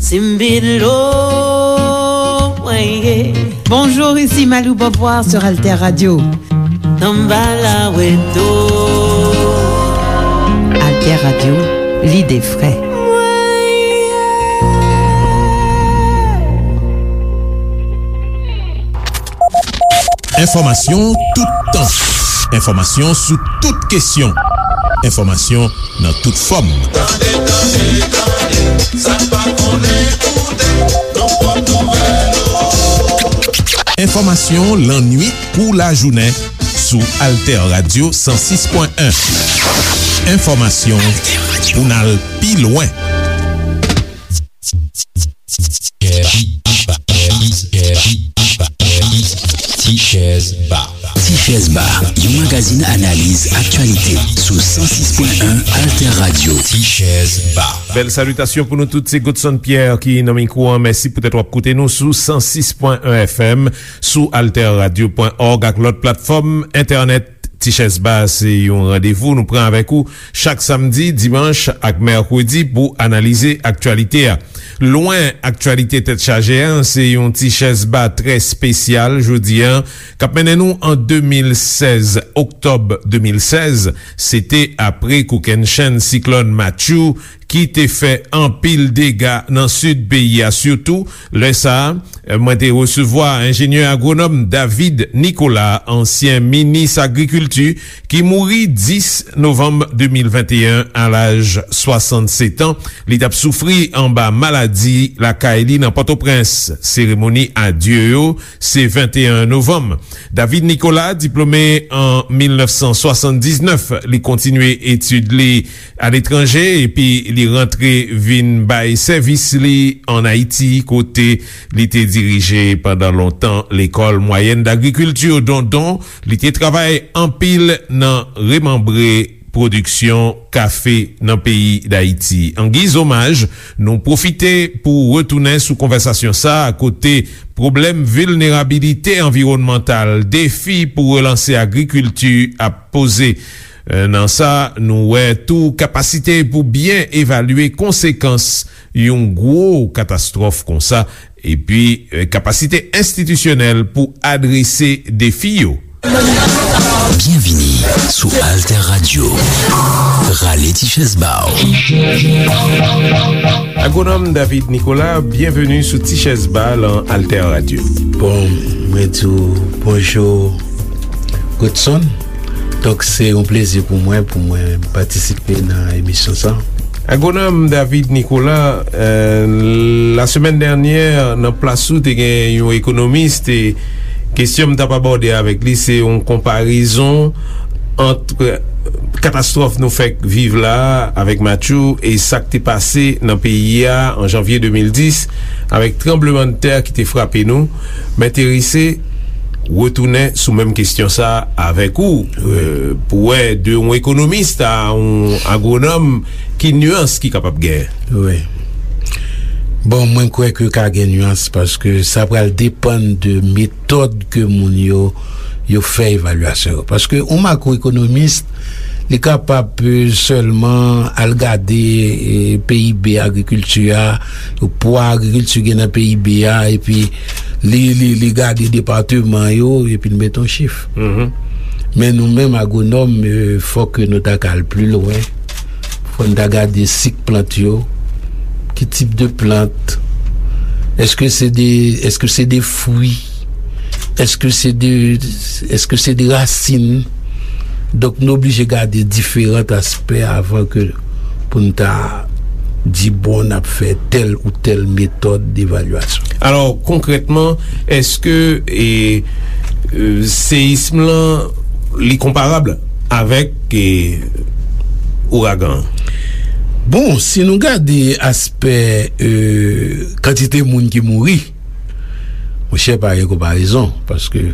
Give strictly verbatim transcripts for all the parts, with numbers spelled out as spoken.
Timbilo, mwen ye. Bonjour, ici Malou Beauvoir sur Alter Radio. Samba la weto. Alter Radio, lide fre. Enfòmasyon toutan. Enfòmasyon sou tout kesyon. Enfòmasyon nan tout fòm. Tande, tande, tande, sa n pa konnen, koute, nou pot nouvèl yo. Enfòmasyon lannwit kou lajounen sou Alter Radio san sis pwen en. Enfòmasyon pou n al pi lwen. Tichèz Ba. Tichèz Ba, yon magazin analiz aktyalite sou san sis pwen en Alter Radio. Tichèz Ba. Bèl salitasyon pou nou tout, se Godson Pierre ki nan mikwo an. Mèsi poutèt w ap koute nou sou san sis pwen en F M, sou alter radio pwen org ak lòt platfòm entènèt. Tichèz Ba se yon randevou nou pran avèk ou chak samdi, dimanch ak mèkredi pou analize aktyalite a. Lwen aktyalite tèt chaje a, se yon Tichèz Ba trè espesyal jodi a, k ap mennen nou an de mil sèz, oktòb de mil sèz, se te apre kokennchenn siklòn Matthew ki te fè anpil dega nan sid peyi a, sitou lè sa a, mwen te resevwa enjenyè agwonòm David Nicolas, ansyen minis agrikilti, ki mouri dis novanm de mil venteyen a laj swasannsèt an. Li t ap soufri anba maladi lakay li nan Pòtoprens. Seremoni adye yo se venteyen novanm. David Nicolas, diplome an mil nèf san swasanndiznèf, li kontinye etid li aletranje, epi li rantre vin bay sèvis li ann Ayiti, kote li te dirije pandan lontan Lekòl Mwayèn Dagrikilti Dondon. Li te travay anpil nan remanbre pwodiksyon kafe nan peyi Dayiti. An giz omaj, nou pwofite pou retounen sou konvèsasyon sa a, kote pwoblèm vilnerabilite anviwònmantal, defi pou relanse agrikilti ap poze. E, nan sa, nou wè tou kapasite pou byen evalye konsekans yon gwo katastwòf konsa, epi, e, kapasite enstitisyonèl pou adrese defi yo. Byenvini sou Alter Radio. Rale ti chèz ba w. Agwonòm David Nicolas, byenveni sou Ti Chèz Ba lan Alter Radio. Bon, mwen di w bonjou, Godson. Donk, se yon plezi pou mwen, pou mwen patisipe nan emisyon sa. Agwonòm David Nicolas, euh, lasemèn dènyè, nan plas ou, te gen yon ekonomis, e kesyon m t ap abòde avèk li, se yon konparezon ant katastwòf nou fèk viv la a avèk Matthew e sa k te pase nan peyi a an janvye de mil dis avèk tranblemanntè ki te frape nou. M enterese retounen sou menm kesyon sa a avèk ou, euh, pou wè de yon ekonomis a yon agwonòm ki nyans ki kapab genyen. Wi. Bon, mwen kwè ke ka gen nyans paske sa pral depann de metòd ke moun yo, yo fè evalyasyon yo. Paske yon makwoekonomis, li kapab, euh, sèlman al gade, euh, P I B agrikilti a, pwa agrikilti gen nan P I B a, epi li, li, li gade depatman yo, epi l mete yon chif. Mhm. Men nou menm agwonòm, euh, fòk nou ta ka al pi lwen. Fò n ta gade sik plant yo, ki tip de plant, èske se de, èske se de fwi, èske se de, èske se de rasin. Donk, nou oblije gade diferan aspè avan ke pou n ta di, bon, n ap fè tèl ou tèl metòd devalyasyon. Alò, konkrètman, èske, e, e, seyism lan, li konparab avèk, e, ouragan an? Bon, si nou gade aspè, e, kantite moun ki mouri, monchè, pa gen konparezon, paske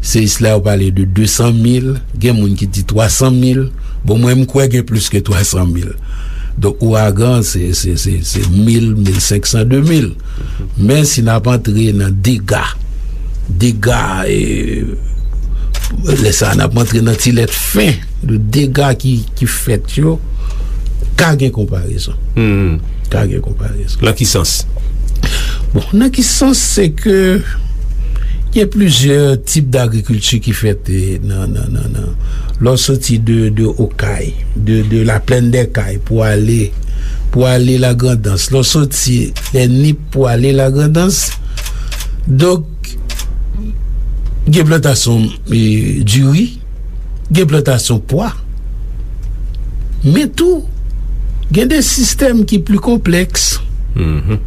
seyis la yo pale de de san mil, gen moun ki di twa san mil. Bon, mwen, m kwè gen plis ke twa san mil. Donk, ouragan, se, se, se, se mil, mil senk san, de mil. Men si n ap antre nan dega, dega, e, lè sa a, n ap antre nan ti lèt fen de dega ki, ki fèt yo, Ka gen konparezon. Hmm. Ka gen konparezon. Nan ki sans? Bon, nan ki sans, se ke gen plizyè tip dagrikilti ki fèt, eh, nan, nan, nan, nan. Lè w soti de, de Okay, de, de la plaine des Cayes pou ale, pou ale Lagrandans. Lè w soti lè Nip pou ale Lagrandans. Donk, gen plantasyon, eh, diri, gen plantasyon pwa, men tou, gen de sistèm ki pli konplèks. Mhm.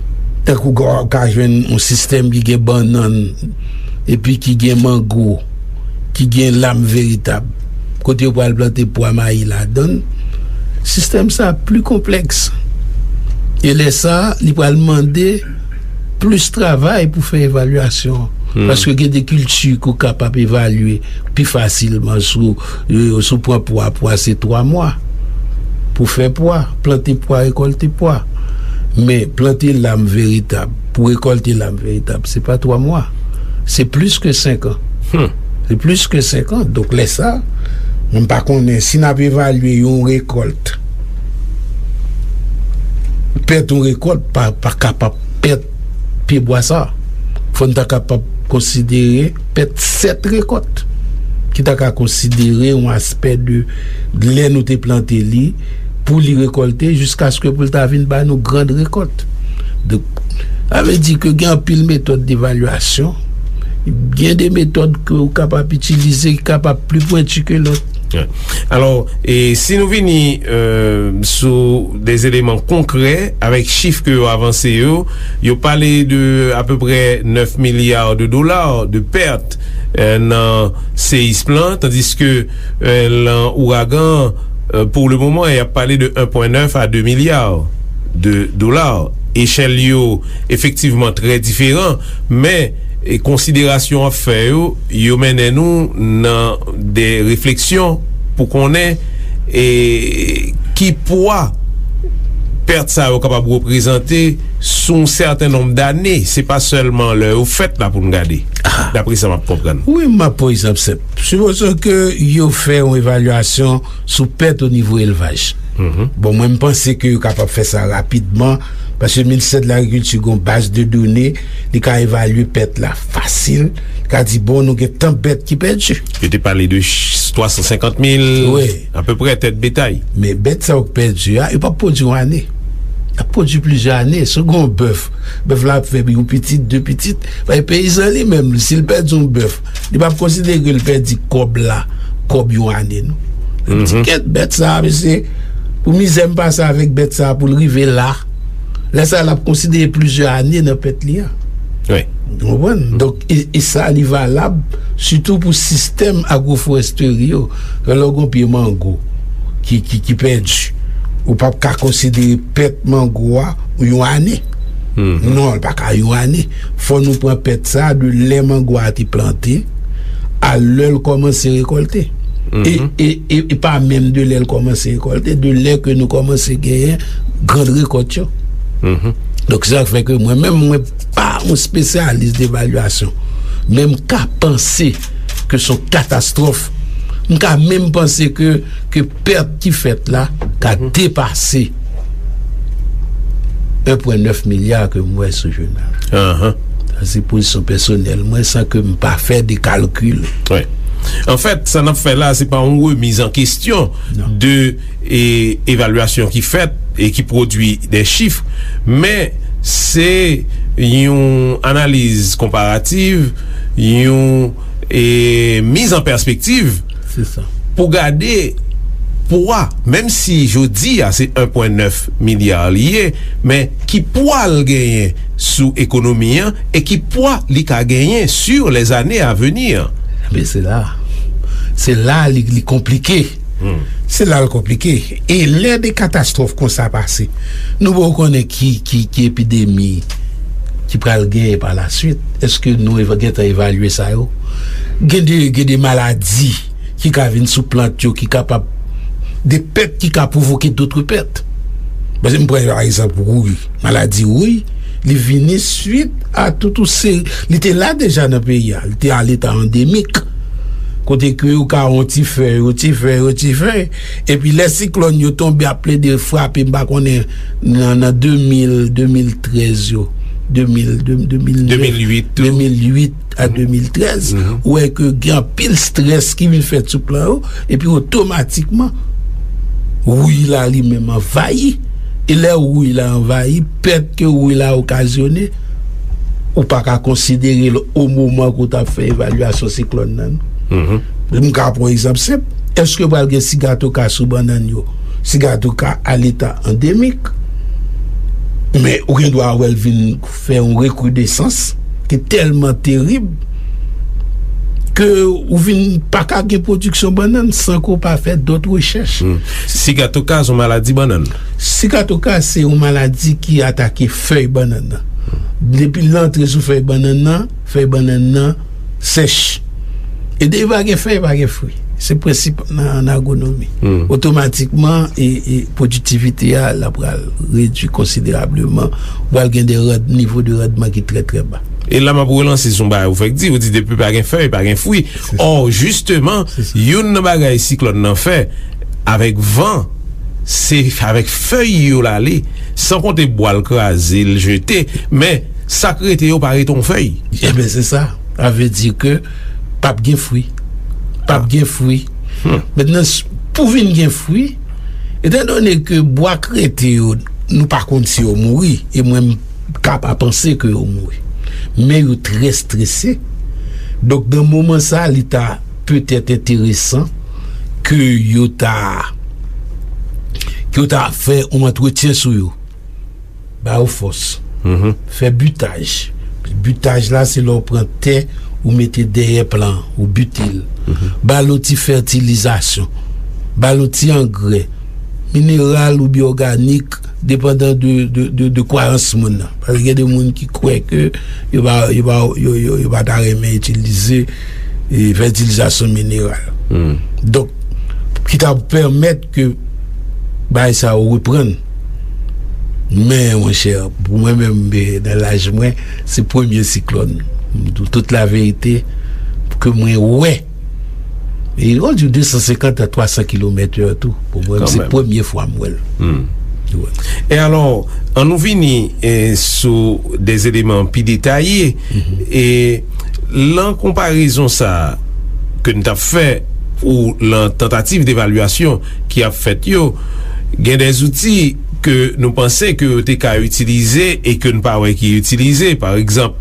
Tankou w ka jwenn yon sistèm ki gen bannann, epi ki gen mango, ki gen lam veritab, kote yo pral plante pwa mayi ladan l. Sistèm sa a pli konplèks. E lè sa a, li pral mande plis travay pou fè evalyasyon. Hmm. Paske gen de kilti ke w kapab evalye pi fasilman sou, euh, sou pran pwa, pwa se twa mwa. Pou fè pwa, plante pwa, rekòlte pwa. Men plante lam veritab, pou rekòlte lam veritab, se pa twa mwa. Se plis ke senk an. Hmm. Se plis ke senk an. Donk, lè sa, mwen pa konnen si n ap evalye yon rekòlt, pèt yon rekòlt pa, pa kapab pèt pyebwa sa. Fò n ta kapab konsidere pèt sèt rekòt, ki ta ka konsidere yon aspè de lè nou te plante li, pou li rekòlte, jiskaske pou l ta vin ba nou grand rekòt. Donk, sa vle di ke gen anpil metòd devalyasyon, gen de metòd ke w kapab itilize ki kapab pli pwenti ke lòt. Alò, e si nou vini, euh, sou de eleman konkrè avèk chif ke yo avanse yo, yo pale de apeprè nèf milya de dola de pèt, euh, nan seyism lan, tandiske, euh, lan ouragan, euh, pou le moman, y ap pale de en pwen nèf a de milya de dola. Echèl yo efektivman trè diferan, men, e, konsiderasyon w ap fè yo, yo mennen nou nan de refleksyon pou konnen, e, ki pwa pèt sa yo kapab reprezante sou yon sèten nonb dane. Se pa sèlman lè yo fèt la pou n gade, dapre sa m ap konprann. Wi, m ap pran egzanp senp. Sipoze ke yo fè yon evalyasyon sou pèt o nivo elvaj. Mhm. Bon, mwen, m panse ke yo kapab fè sa rapidman, paske Ministè de Lagrikilti gen yon baz de done, li ka evalye pèt la fasil, li ka di, bon, nou gen tan bèt ki pèdi. Yo te pale de ch-, twa san senkant mil, wi, apeprè, tèt betay. Men bèt sa yo k pèdi a, yo p ap pwodui yon ane. Y ap pwodui plizyè ane. Si w gen yon bèf, bèf la ap fè yon pitit, de pitit. Paske peyizan li menm, si l pèdi yon bèf, li p ap konsidere ke l pèdi kòb la, kòb yon ane, non. Li di, mhm, kèt, bèt sa a, mesye, pou mizè m pase avèk bèt sa a pou l rive la. Lè sa a, l ap konsidere plizyè ane nan pèt li a. Wi. Ou konprann? Donk, e, e sa, li valab sitou pou sistèm agwoforestri yo. Lè w gen yon pye mango ki, ki, ki pèdi, ou p ap ka konsidere pèt mango a yon ane. Mhm. Non, li pa ka yon ane. Fò nou pran pèt sa a de lè mango a te plante a lè l kòmanse rekòlte. E, mhm, e, e, e pa menm de lè l kòmanse rekòlte, de lè ke nou kòmanse genyen grand rekòt yo. Mhm. Donk, se sa k fè ke mwen menm, mwen pa yon espesyalis devalyasyon. Men m ka panse ke se yon katastwòf. M ka menm panse ke, ke pèt ki fèt la ka, mhm, depase en pwen nèf milya ke m wè sou jounal. Ahan. Sa se pozisyon pèsonèl mwen, san ke m pa fè de kalkil. Wi. Anfèt, sa n ap fè la, se pa yon remiz an kesyon, non, de, e, evalyasyon ki fèt e ki pwodui de chif, men se yon analiz konparativ, yon, e, miz an pèspektiv, se sa, pou gade pwa, menm si jodi a se en pwen nèf milya li ye, men ki pwa l genyen sou ekonomi an e ki pwa li ka genyen sur les années à venir. Men se la, se la li, li konplike. Hmm. Se la l konplike. E lè de katastwòf konsa pase, nou poko konnen ki, ki, ki epidemi ki pral genyen pa la swit. Èske nou eva-, gentan evalye sa yo? Gen de, gen de maladi ki ka vin sou plant yo, ki kapab, de pèt ki ka pwovoke dòt pèt. Paske m pran pa egzanp wouy, maladi wouy, li vini swit a tout yon seri, li te la deja nan peyi a, li te a leta andemik. Kote ke yo ka yon ti fèy, yon ti fèy, yon ti fèy. Epi lè siklòn yo tonbe ap plede frape, m pa konnen nan, nan de mil, de mil trèz yo, de mil, de, de mil nèf, de mil uit tou. De mil uit a de mil trèz, ou wè ke gen anpil strès ki vin fèt sou plan yo, epi otomatikman, wouy la li menm anvayi. E lè wouy la anvayi, pèt ke wouy la okazyone, ou pa ka konsidere l o moman ke w t ap fè evalyasyon siklòn nan, non. M ka pran yon egzanp senp. Èske pral gen sigatoka sou bannann yo? Sigatoka a leta andemik. Men ou gen dwa wè l vin fè yon rekridesans ki tèlman terib ke ou vin pa ka gen pwodiksyon bannann san ke w pa fè dòt rechèch. Sigatoka se yon maladi bannann. Sigatoka se yon maladi ki atake fèy bannann nan. Depi l antre sou fèy bannann nan, fèy bannann nan sèch. E depi pa gen fèy, pa gen fwi. Se prensip nan, nan agwonomi. Otomatikman, e, e pwodiktivite a, l ap pral redui konsiderableman. Ou pral gen de rand-, nivo de randman ki trè, trè ba. E la, m ap relanse sou yon bagay ou fèk di, ou di depi pa gen fèy, pa gen fwi. Ò, jisteman, youn nan bagay siklòn nan fè, avèk van, se avèk fèy yo l ale, san konte bwa l kraze, l jete, men sa k rete yo pa rete yon fèy. Ebyen, se sa. Sa vle di ke p ap gen fwi. P ap gen fwi. Mentnan, s-, pou vin gen fwi, etandone ke bwa k rete yo, nou pa konn si yo mouri, e mwen, m ka pa panse ke yo mouri. Men yo trè strese. Donk, nan moman sa, li ta petèt enteresan ke yo ta, ke yo ta fè yon antretyen sou yo. Ba yo fòs. Fè bitaj. Bitaj la, se lè w pran tè, ou mete dèyè plan, ou bite l. Ba l yon ti fètilizasyon. Ba l yon ti angrè. Mineral oubyen òganik, depandan de, de, de, de kwayans moun nan. Paske gen de moun ki kwè ke yo pa, yo pa, yo, yo, yo pa ta renmen itilize, e, fètilizasyon mineral. Donk, ki ta pèmèt ke bagay sa yo reprann. Men, monchè, pou mwen menm, e, nan laj mwen, se premye siklòn. M di w tout laverite, ke mwen wè. E, on di de san senkant a twa san kilomèt è tou. Pou mwen, se premye fwa m wè l. Wi. E alò, ann nou vini, e, sou de eleman pi detaye. E lan konparezon sa a ke n t ap fè, ou lan tantativ devalyasyon ki ap fèt yo, gen de zouti ke nou panse ke yo te ka itilize e ke n pa wè ki itilize. Pa egzanp,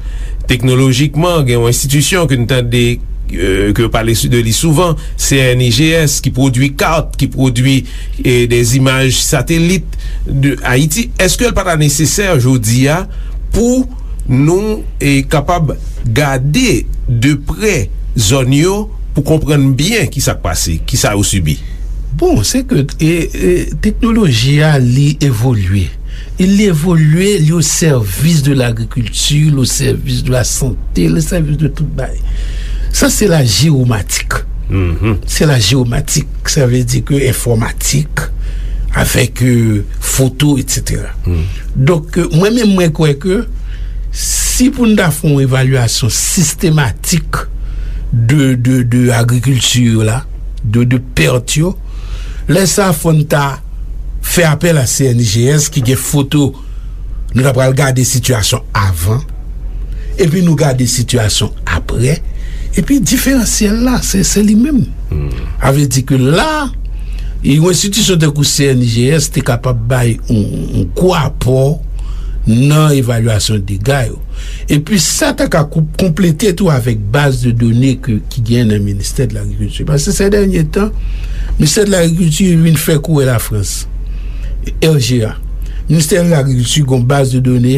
teknolojikman, gen yon enstitisyon ke n tande, e, ke yo pale sou, de li souvan, C N I G S, ki pwodui kat, ki pwodui, e, de imaj satelit de Ayiti. Èske l pa ta nesesè jodi a pou nou, e, kapab gade de prè zòn yo pou konprann byen ki sa k pase, ki sa yo sibi? Bon, se ke, e, e, teknoloji a, li evolye. E li evolye, li o sèvis de lagrikilti, li o sèvis de lasante, li o sèvis de tout bagay. Sa, se la jewomatik. Se la jewomatik, sa vle di ke enfòmatik, avèk, e, foto, etsetera. Donk, e, mwen menm, mwen kwè ke si pou n ta fè yon evalyasyon sistematik de, de, de agrikilti yo la, de, de pèt yo, lè sa a fò n ta fè apèl a C N I G S ki gen foto, nou ta pral gade sitiyasyon avan, epi nou gade sitiyasyon aprè, epi diferansyèl la, se, se li menm. Sa vle di ke la, yon enstitisyon tankou C N I G S te kapab bay yon, yon gwo apò nan evalyasyon dega yo. Epi sa ta ka kou-, konplete tou avèk baz de done ke, ki gen nan Ministè de Lagrikilti. Paske se dènye tan, Ministè de Lagrikilti vin fè kouri Lafrans, R G A. Ministè de Lagrikilti gen yon baz de done,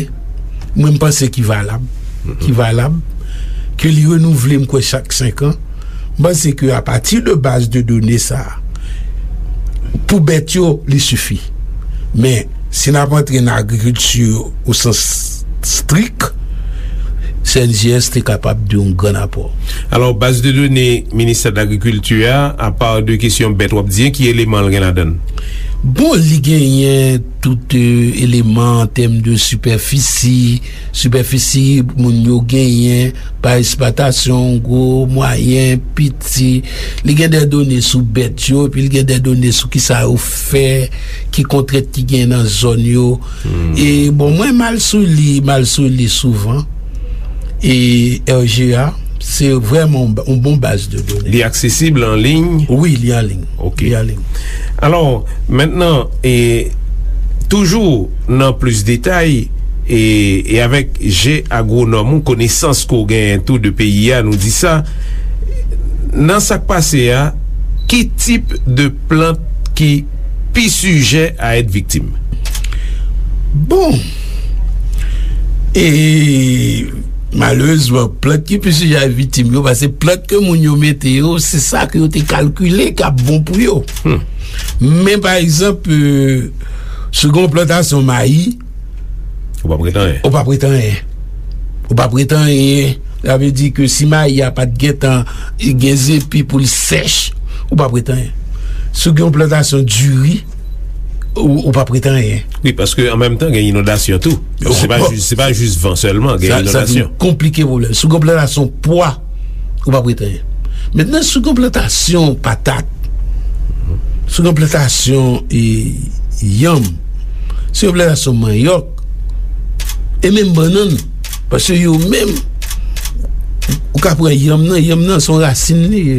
mwen, m panse ki valab, ki valab, ke li renouvle, m kwè, chak senk an. M panse ke apati de baz de done sa a, pou bèt yo, li sifi. Men, si n ap antre nan agrikilti o sans strik, C N J S te kapab de yon gran apò. Alò, baz de done Ministè de Lagrikilti a, apa de kesyon bèt w ap di, ki eleman l gen ladan l? Bon, li genyen tout, e, eleman an tèm de sipèfisi, sipèfisi moun yo genyen, pa esplwatasyon, gwo, mwayen, piti. Li gen de done sou bèt yo, epi li gen de done sou kisa yo fè, ki kontrent ki gen nan zòn yo. E, bon, mwen m al sou li, m al sou li souvan. E R G A, se vrèman yon ba-, yon bon baz de done. Li aksesib an liy? Wi, li an liy. Ok. Li an liy. Alò, mentnan, e, toujou nan plis detay, e, e avèk je agwonòm ou, konesans ke w genyen tou de peyi a, nou di sa, nan sa k pase a, ki tip de plant ki pi sijè a èt viktim? Bon, e malerezman, plant ki pi sijè a viktim yo, paske plant ke moun yo mete yo, se sa ke yo te kalkile k ap bon pou yo. Men, pa egzanp, e, si w gen yon plantasyon mayi, ou p ap ret anyen. Ou p ap ret anyen. Ou p ap ret anyen. Sa vle di ke si mayi a pa t gentan gen zepi pou l sèch, ou p ap ret anyen. Si w gen yon plantasyon diri, ou, ou p ap ret anyen. Wi, paske an menm tan, gen inondasyon tou. Se pa jis, se pa jis van sèlman, gen inondasyon. Sa, sa vin konplike pwoblèm. Si w gen yon plantasyon pwa, ou p ap ret anyen. Mentnan, si w gen yon plantasyon patat, si w gen yon plantasyon, e, yanm, si w gen yon plantasyon manyòk, e menm bannann, paske yo menm, ou ka pran yanm nan, yanm nan se yon rasin li ye.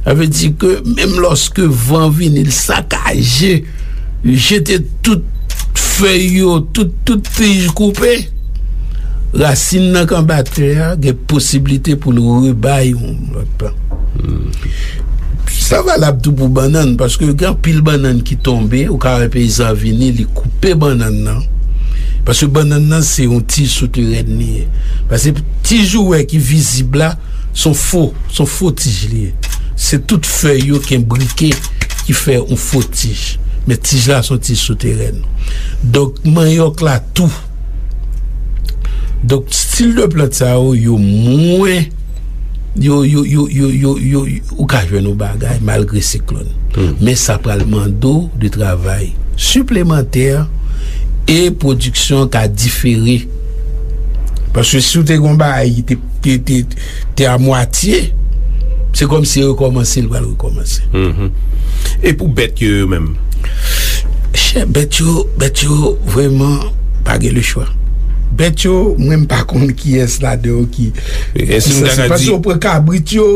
Sa vle di ke menm lòske van vini, l sakaje, jete tout fèy yo, tout, tout tij koupe, rasin nan k anba tè a gen posiblite pou l rebay yon lòt plant. Sa valab tou pou bannann, paske gen anpil bannann ki tonbe, ou ka wè peyizan vini, li koupe bannann nan. Paske bannann nan se yon tij souterèn li ye. Paske tij ou wè ki vizib la, se yon fo, se yon fo tij li ye. Se tout fèy yo ki enbrike ki fè yon fo tij. Men tij la se yon tij souterèn. Donk, manyòk la tou. Donk, stil de plant sa yo, yo mwen, yo, yo, yo, yo, yo, yo, ou ka jwenn yon bagay malgre siklòn. Men sa pral mande w de travay siplemantè e pwodiksyon an ka difere. Paske si w te gen yon bagay ki te, te, te, te a mwatye, se kòmsi rekòmanse, l pral rekòmanse. E pou bèt yo, yo menm? Chè, bèt yo, bèt yo, vrèman, pa gen lechwa. Bèt yo, mwen, m pa konn kiyès ladan yo ki, ki sanse. Paske w pran kabrit yo,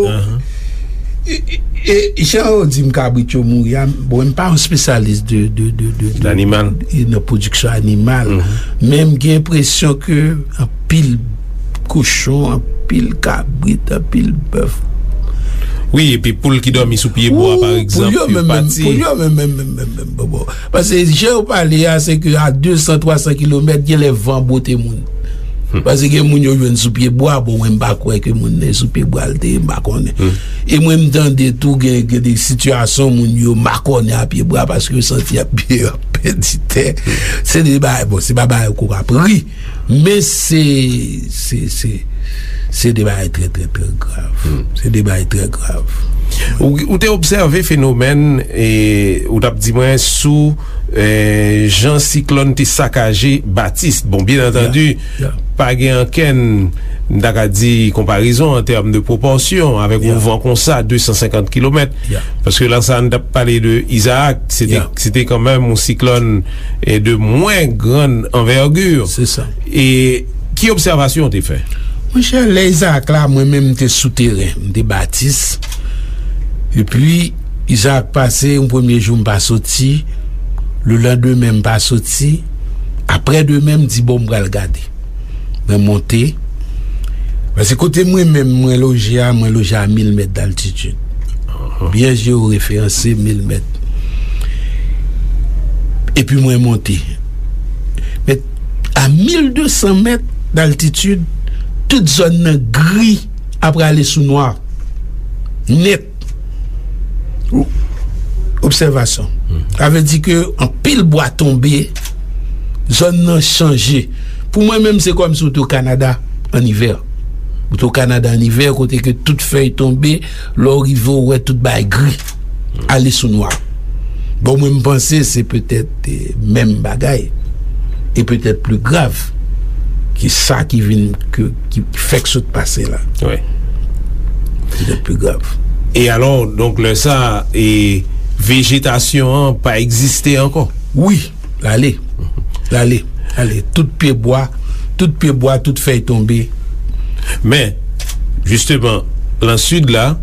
e, e, e, jan yo di m kabrit yo mouri a, bon, m pa yon espesyalis de, de, de, de, de, d'animal, e nan pwodiksyon animal. Men m gen enpresyon ke anpil kochon, anpil kabrit, anpil bèf. Wi, epi poul ki dòmi sou pye bwa, pa egzanp, yo pati. Poul yo menm, menm, menm, menm, menm, bon, bon. Paske jan yo pale a, se ke a de san, twa san kilomèt, gen lè van bwote moun. Paske gen moun yo jwenn sou pye bwa, bon, mwen, m pa kwè ke moun nan sou pye bwa l te ye, m pa konnen. E mwen, m tande tou gen, gen de sitiyasyon moun yo makònen a pye bwa paske yo santi y ap, y ap pèdi tè. Se de bagay, bon, se pa bagay ou ka ap ri. Men se, se, se, se de bagay trè, trè, trè grav. Se de bagay trè grav. Ou, ou te obsève fenomèn, e, ou t ap di mwen sou, e, jan siklòn te sakaje Batis. Bon, byen antandi, pa gen okenn, m ta ka di, konparezon an tèm de pwopòsyon avèk yon van konsa, de san senkant kilomèt. Paske lè sa, n t ap pale de Isaac, se te, se te kanmenm yon siklòn, e, de mwen grann anvègi. Se sa. E ki obsèvasyon w te fè? Monchè, lè Isaac la, mwen menm, m te sou teren, m te Batis. Epi, Isaac pase, yon premye jou, m pa soti. Lelandemen, m pa soti. Aprè demen, m di, bon, m pral gade. Mwen monte. Paske kote mwen menm, mwen loje a, mwen loje a mil mèt d'altitid. Byen jeworeferanse, mil mèt. Epi mwen monte. Men a mil de san mèt d'altitid, tout zòn nan gri apre ale sou nwa. Nèt. Obsèvasyon. Sa vle di ke anpil bwa tonbe, zòn nan chanje. Pou mwen menm, se kòmsi w te o Kanada an ivè. Ou te o Kanada an ivè, kote ke tout fèy tonbe, lè w rive, w wè tout bagay gri, ale sou nwa. Bon, mwen, m panse se petèt, eh, menm bagay, e petèt pli grav ke sa ki vin, ke, ki fèk sot pase la. Wi. Petèt pli grav. E alò, donk, lè sa, e vejetasyon an pa egziste ankò? Wi, l ale. L ale. Ale. Tout pye bwa, tout pye bwa, tout fèy tonbe. Men, jisteman, lan sid la,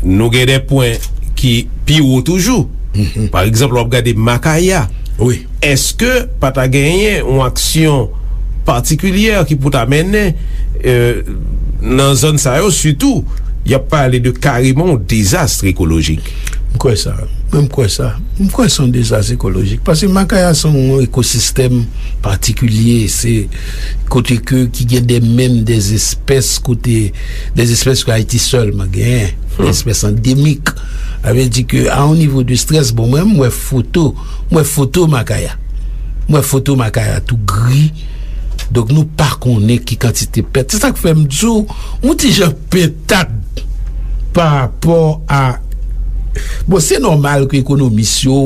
nou gen de pwen ki pi wo toujou. Mhm. Pa egzanp, w ap gade Makaya. Wi. Èske pa ta genyen yon aksyon patikilyè ki pou ta mennen, euh, nan zòn sa yo, sitou, y ap pale de kareman yon dezas ekolojik? M kwè sa. Mwen, m kwè sa. M kwè se yon dezas ekolojik. Paske Makaya se yon ekosistèm patikilye. Se kote ke, ki gen de, menm de espès kote, de espès ke Ayiti sèlman genyen. Hmm. De espès andemik. Sa vle di ke a yon nivo de strès, bon, mwen, m wè foto, m wè foto Makaya. M wè foto Makaya tou gri. Donk, nou pa konnen ki kantite pèt. Se sa k fè m di w, m yon ti jan pentad pa rapò a, bon, se nòmal ke ekonomis yo,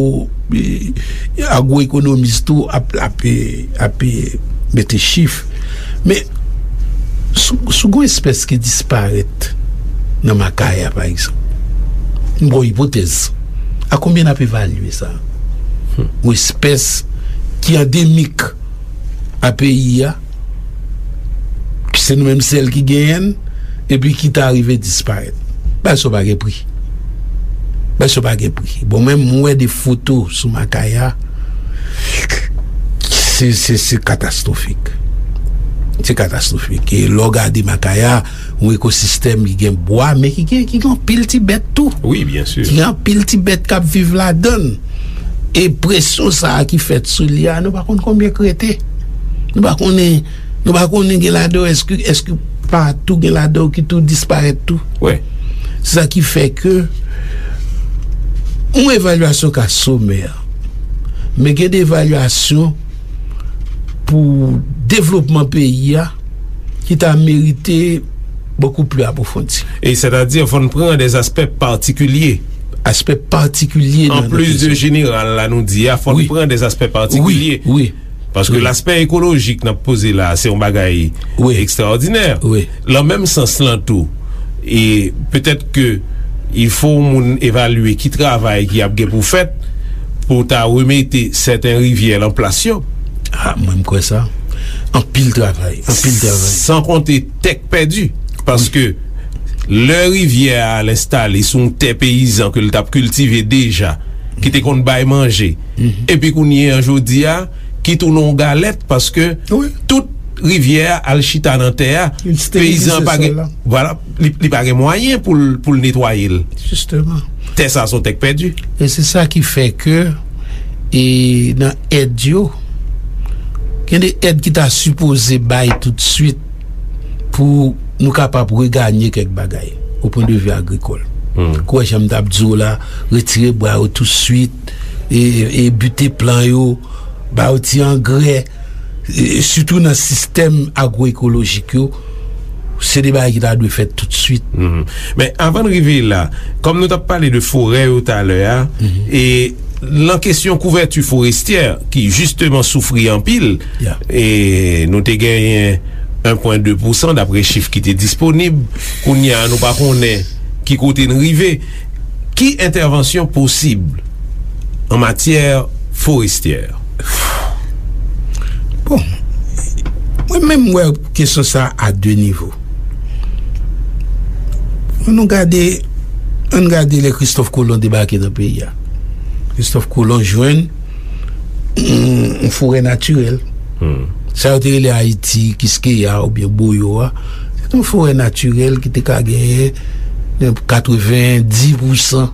e, agwoekonomis tou ap, ap, ap mete chif. Men, si, si gon espès ki disparèt nan Makaya, pa egzanp, m ba w ipotèz, a konbyen n ap evalye sa? Yon espès ki andemik a peyi a, se nou menm sèl ki genyen l, epi ki ta rive disparèt. Bagay sa yo pa gen pri. Bagay sa yo pa gen pri. Bon, menm mwen wè de foto sou Makaya, se, se, se katastwofik. Se katastwofik. E lè w gade Makaya, yon ekosistèm ki gen bwa, men ki gen, ki gen anpil ti bèt tou. Wi, byen si. Ki gen anpil ti bèt k ap viv ladan l. E presyon sa a ki fèt sou li a, nou pa konn konbyen k rete. Nou pa konnen, nou pa konnen gen ladan yo, èske, èske pa tou gen ladan yo ki tou disparèt tou? Wi. Se sa ki fè ke yon evalyasyon ka somè, men gen de evalyasyon pou devlopman peyi a ki ta merite bokou pli apwofondi. E sètadi, fò n pran de aspè patikilye. Aspè patikilye nan, nan kesyon. An plis de jeneral la nou di a, fò n pran de aspè patikilye. Wi, wi. Paske laspè ekolojik n ap poze la, se yon bagay ekstraòdinè. Wi. Lan menm sans lan tou, e petèt ke il fo moun evalye ki travay ki ap gen pou fèt pou ta remete sèten rivyè lan plas yo. A, mwen, m kwè sa. Anpil travay, anpil travay. San konte tè k pèdi. Paske lè rivyè a al enstale sou yon tè peyizan ke l t ap kiltive deja, ki te konn bay manje, epi kounye a, jodi a, ki tounen yon galèt, paske tout rivyè a al chita nan tè a, peyizan an pa gen, vwala, li, li pa gen mwayen pou l, pou l netwaye l. Jisteman. Tè sa a se yon tè k pèdi. E se sa ki fè ke, e nan èd yo, gen de èd ki ta sipoze bay toutswit pou nou kapab reganye kèk bagay, o pwen de vi agrikòl. Hmm. Kwè jan m t ap di w la, retire bwa yo toutswit, e, e bite plan yo, ba yo ti angrè, e, sitou nan sistèm agwoekolojik yo, se de bagay ki ta dwe fèt toutswit. Mhm. Men avan n rive la, kòm nou t ap pale de forè yo talè a, e lan kesyon kouvèti forestyè, ki jisteman soufri anpil, e nou te genyen en pwen de pousan dapre chif ki te disponib, kounye a nou pa konnen ki kote n rive. Ki entèvansyon posib an matyè forestyè? Bon, mwen menm, m wè kesyon sa a de nivo. Ann nou gade, ann gade lè Kristòf Kolon debake nan peyi a. Kristòf Kolon jwenn yon, yon forè natirèl. Hmm. Sa yo te rele Ayiti, Kiskeya oubyen Boyo a, se te yon forè natirèl ki te ka genyen katrevenndis pousan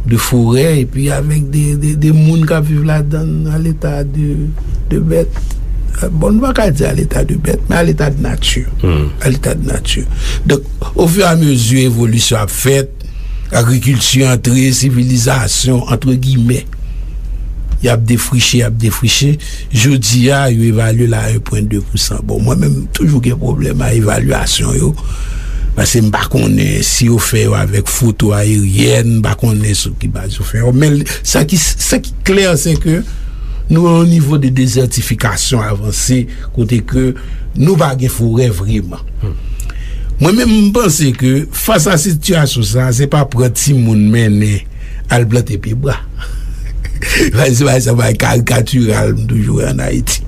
de forè, epi avèk de, de, de moun k ap viv ladan l, a leta de, de bèt. Bon, nou pa ka di a leta de bèt, men a leta de nati. Hmm. A leta de nati. Donk, ofiramezi evolisyon ap fèt, agrikilti antre, sivilizasyon, antre gimè, y ap defriche, y ap defriche. Jodi a, yo evalye l a en pwen de pousan. Bon, mwen menm, m toujou gen pwoblèm a evalyasyon yo. Paske m pa konnen si yo fè yo avèk foto ayeryèn, m pa konnen sou ki baz yo fè yo. Men sa ki, sa ki klè, se ke nou nan yon nivo de dezètifikasyon avanse, kote ke nou pa gen forè vreman. Mwen menm, m panse ke fas a sitiyasyon sa, se pa pran timoun mennen al plante pye bwa. Se pa, se pa karikatiral m toujou wè ann Ayiti.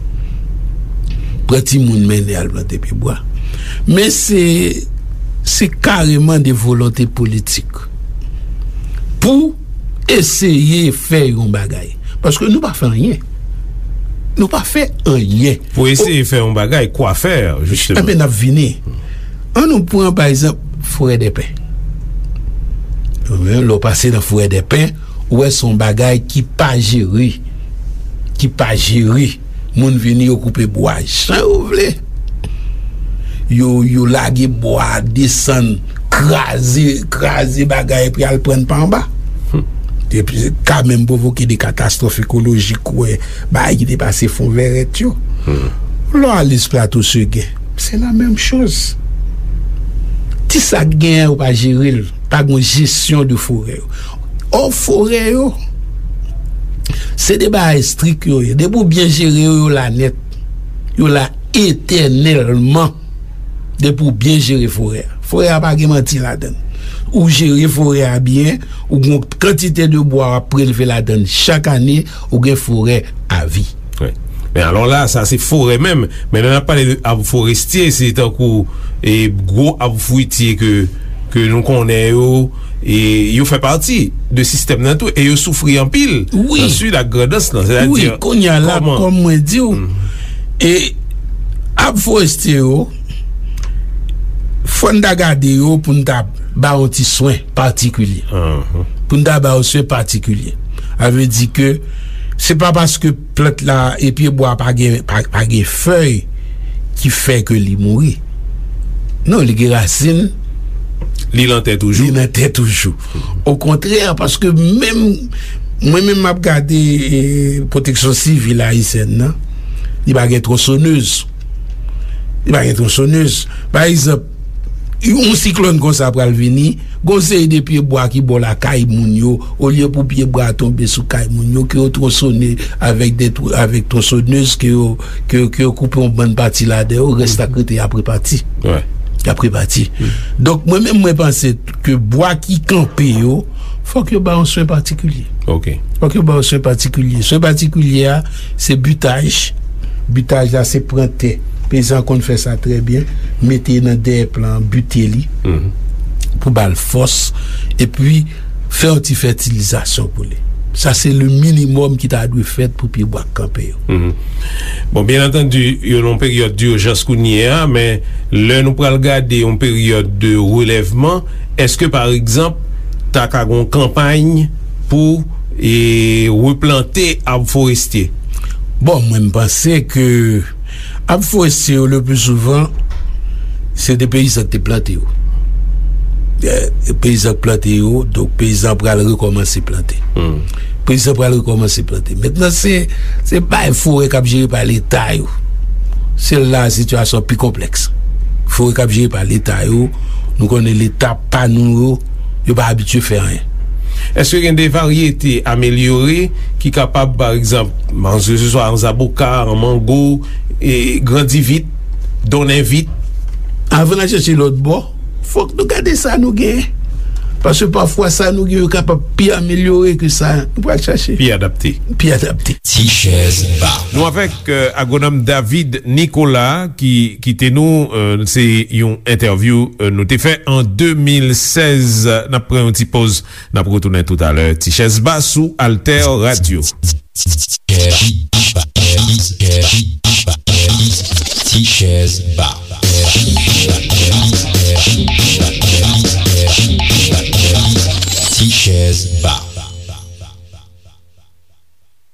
Pran timoun mennen al plante pye bwa. Men se, se kareman de volonte politik pou eseye fè yon bagay. Paske nou pa fè anyen. Nou pa fè anyen. Pou eseye fè yon bagay, kwa fè, jisteman? Enben, n ap vini. An nou pran, pa egzanp, Forèdèpen. Lè w pase nan Forèdèpen, ou wè se yon bagay ki pa jere. Ki pa jere. Moun vini, yo koupe bwa jan yo vle. Yo, yo lage bwa, desann, kraze, kraze bagay, epi al pran pa anba. Epi, ka menm pwovoke de katastwòf ekolojik, ou wè, bagay ki te pase fon vèrèt yo. Lè w ale sou Plato Segen, se la menm choz. Ti sa k genyen, yo pa jere l. Pa gen jesyon de forè yo. Ò, forè yo, se de bagay estrik yo ye. Depi w byen jere yo, yo la nèt. Yo la etènèlman. Depi w byen jere forè a. Forè a pa gen manti ladan l. Ou jere forè a byen, ou gen yon kantite de bwa w ap prelve ladan l chak ane, ou gen forè avi. Wi. Men alò la, sa se forè menm. Men lè n ap pale de ab forestye, se tankou, e, gwo ab fwitye ke, ke nou konnen yo, e yo fè pati de sistèm nan tou, e yo soufri anpil nan Sid ak Grandans lan. Wi, sètadi, kounye a la, kòm mwen di w, e ab forestye yo, fò n ta gade yo pou n ta ba yo ti swen patikilye. Pou n ta ba yo swen patikilye. Sa vle di ke se pa paske plant la e pye bwa pa gen, pa, pa gen fèy ki fè ke li mouri. Non, li gen rasin. Li nan tè toujou. Li nan tè toujou. Okontrè, paske menm, mwen menm m ap gade, e, pwoteksyon sivil ayisyèn nan, li pa gen twonsonèz. Li pa gen twonsonèz. Pa egzanp, yon siklòn konsa pral vini, gon seri de pye bwa ki bò lakay moun yo, olye pou pye bwa a tonbe sou kay moun yo, ke yo twonsone avèk de tw-, avèk twonsonèz, ke yo, ke, ke yo koupe yon bann pati ladan yo, rès la k rete y ap repati. Y ap repati. Donk, mwen menm, mwen panse ke bwa ki kanpe yo, fòk yo ba yon swen patikilye. Fòk yo ba yon swen patikilye. Swen patikilye a, se bitaj. Bitaj la, se pran tè. Peyizan konn fè sa trè byen. Mete nan dèyè plan, bite li. Pou ba l fòs. Epi, fè yon ti fètilizasyon pou li. Sa, se le minimòm ki ta dwe fèt pou pye bwa k kanpe yo. Bon, byen antandi, yo nan yon peryòd dijans kounye a, men lè nou pral gade yon peryòd de relèvman, èske, pa egzanp, ta ka gon kanpay pou, e, replante ab forestye? Bon, mwen, m panse ke ab forestye yo, le pli souvan, se de peyizan ki te plante yo. E, peyizan ki plante yo, donk peyizan pral rekòmanse plante. Peyizan pral rekòmanse plante. Mentnan, se, se bay forè k ap jere pa Leta yo. Se la sitiyasyon pi konplèks. Forè k ap jere pa Leta yo, nou konnen Leta pa nou yo, yo pa abitye fè anyen. Èske gen de varyete amelyore ki kapab, pa egzanp, ke se swa an zaboka, an mango, e grandi vit, donnen vit? Avan n al chèche lòt bò, fòk nou gade sa nou genyen. Paske pafwa sa nou genyen yo kapab pi amelyore ke sa nou pral chache. Pi adapte. Pi adapte. Ti chèz ba. Nou avèk, euh, agwonòm David Nicolas ki kite nou, euh, se yon entèvyou, euh, nou te fè an de mil sèz. N ap pran yon ti poz, n ap retounen toutalè. Ti chèz ba sou Alter Radio. Ti chèz ba. Ti chèz ba.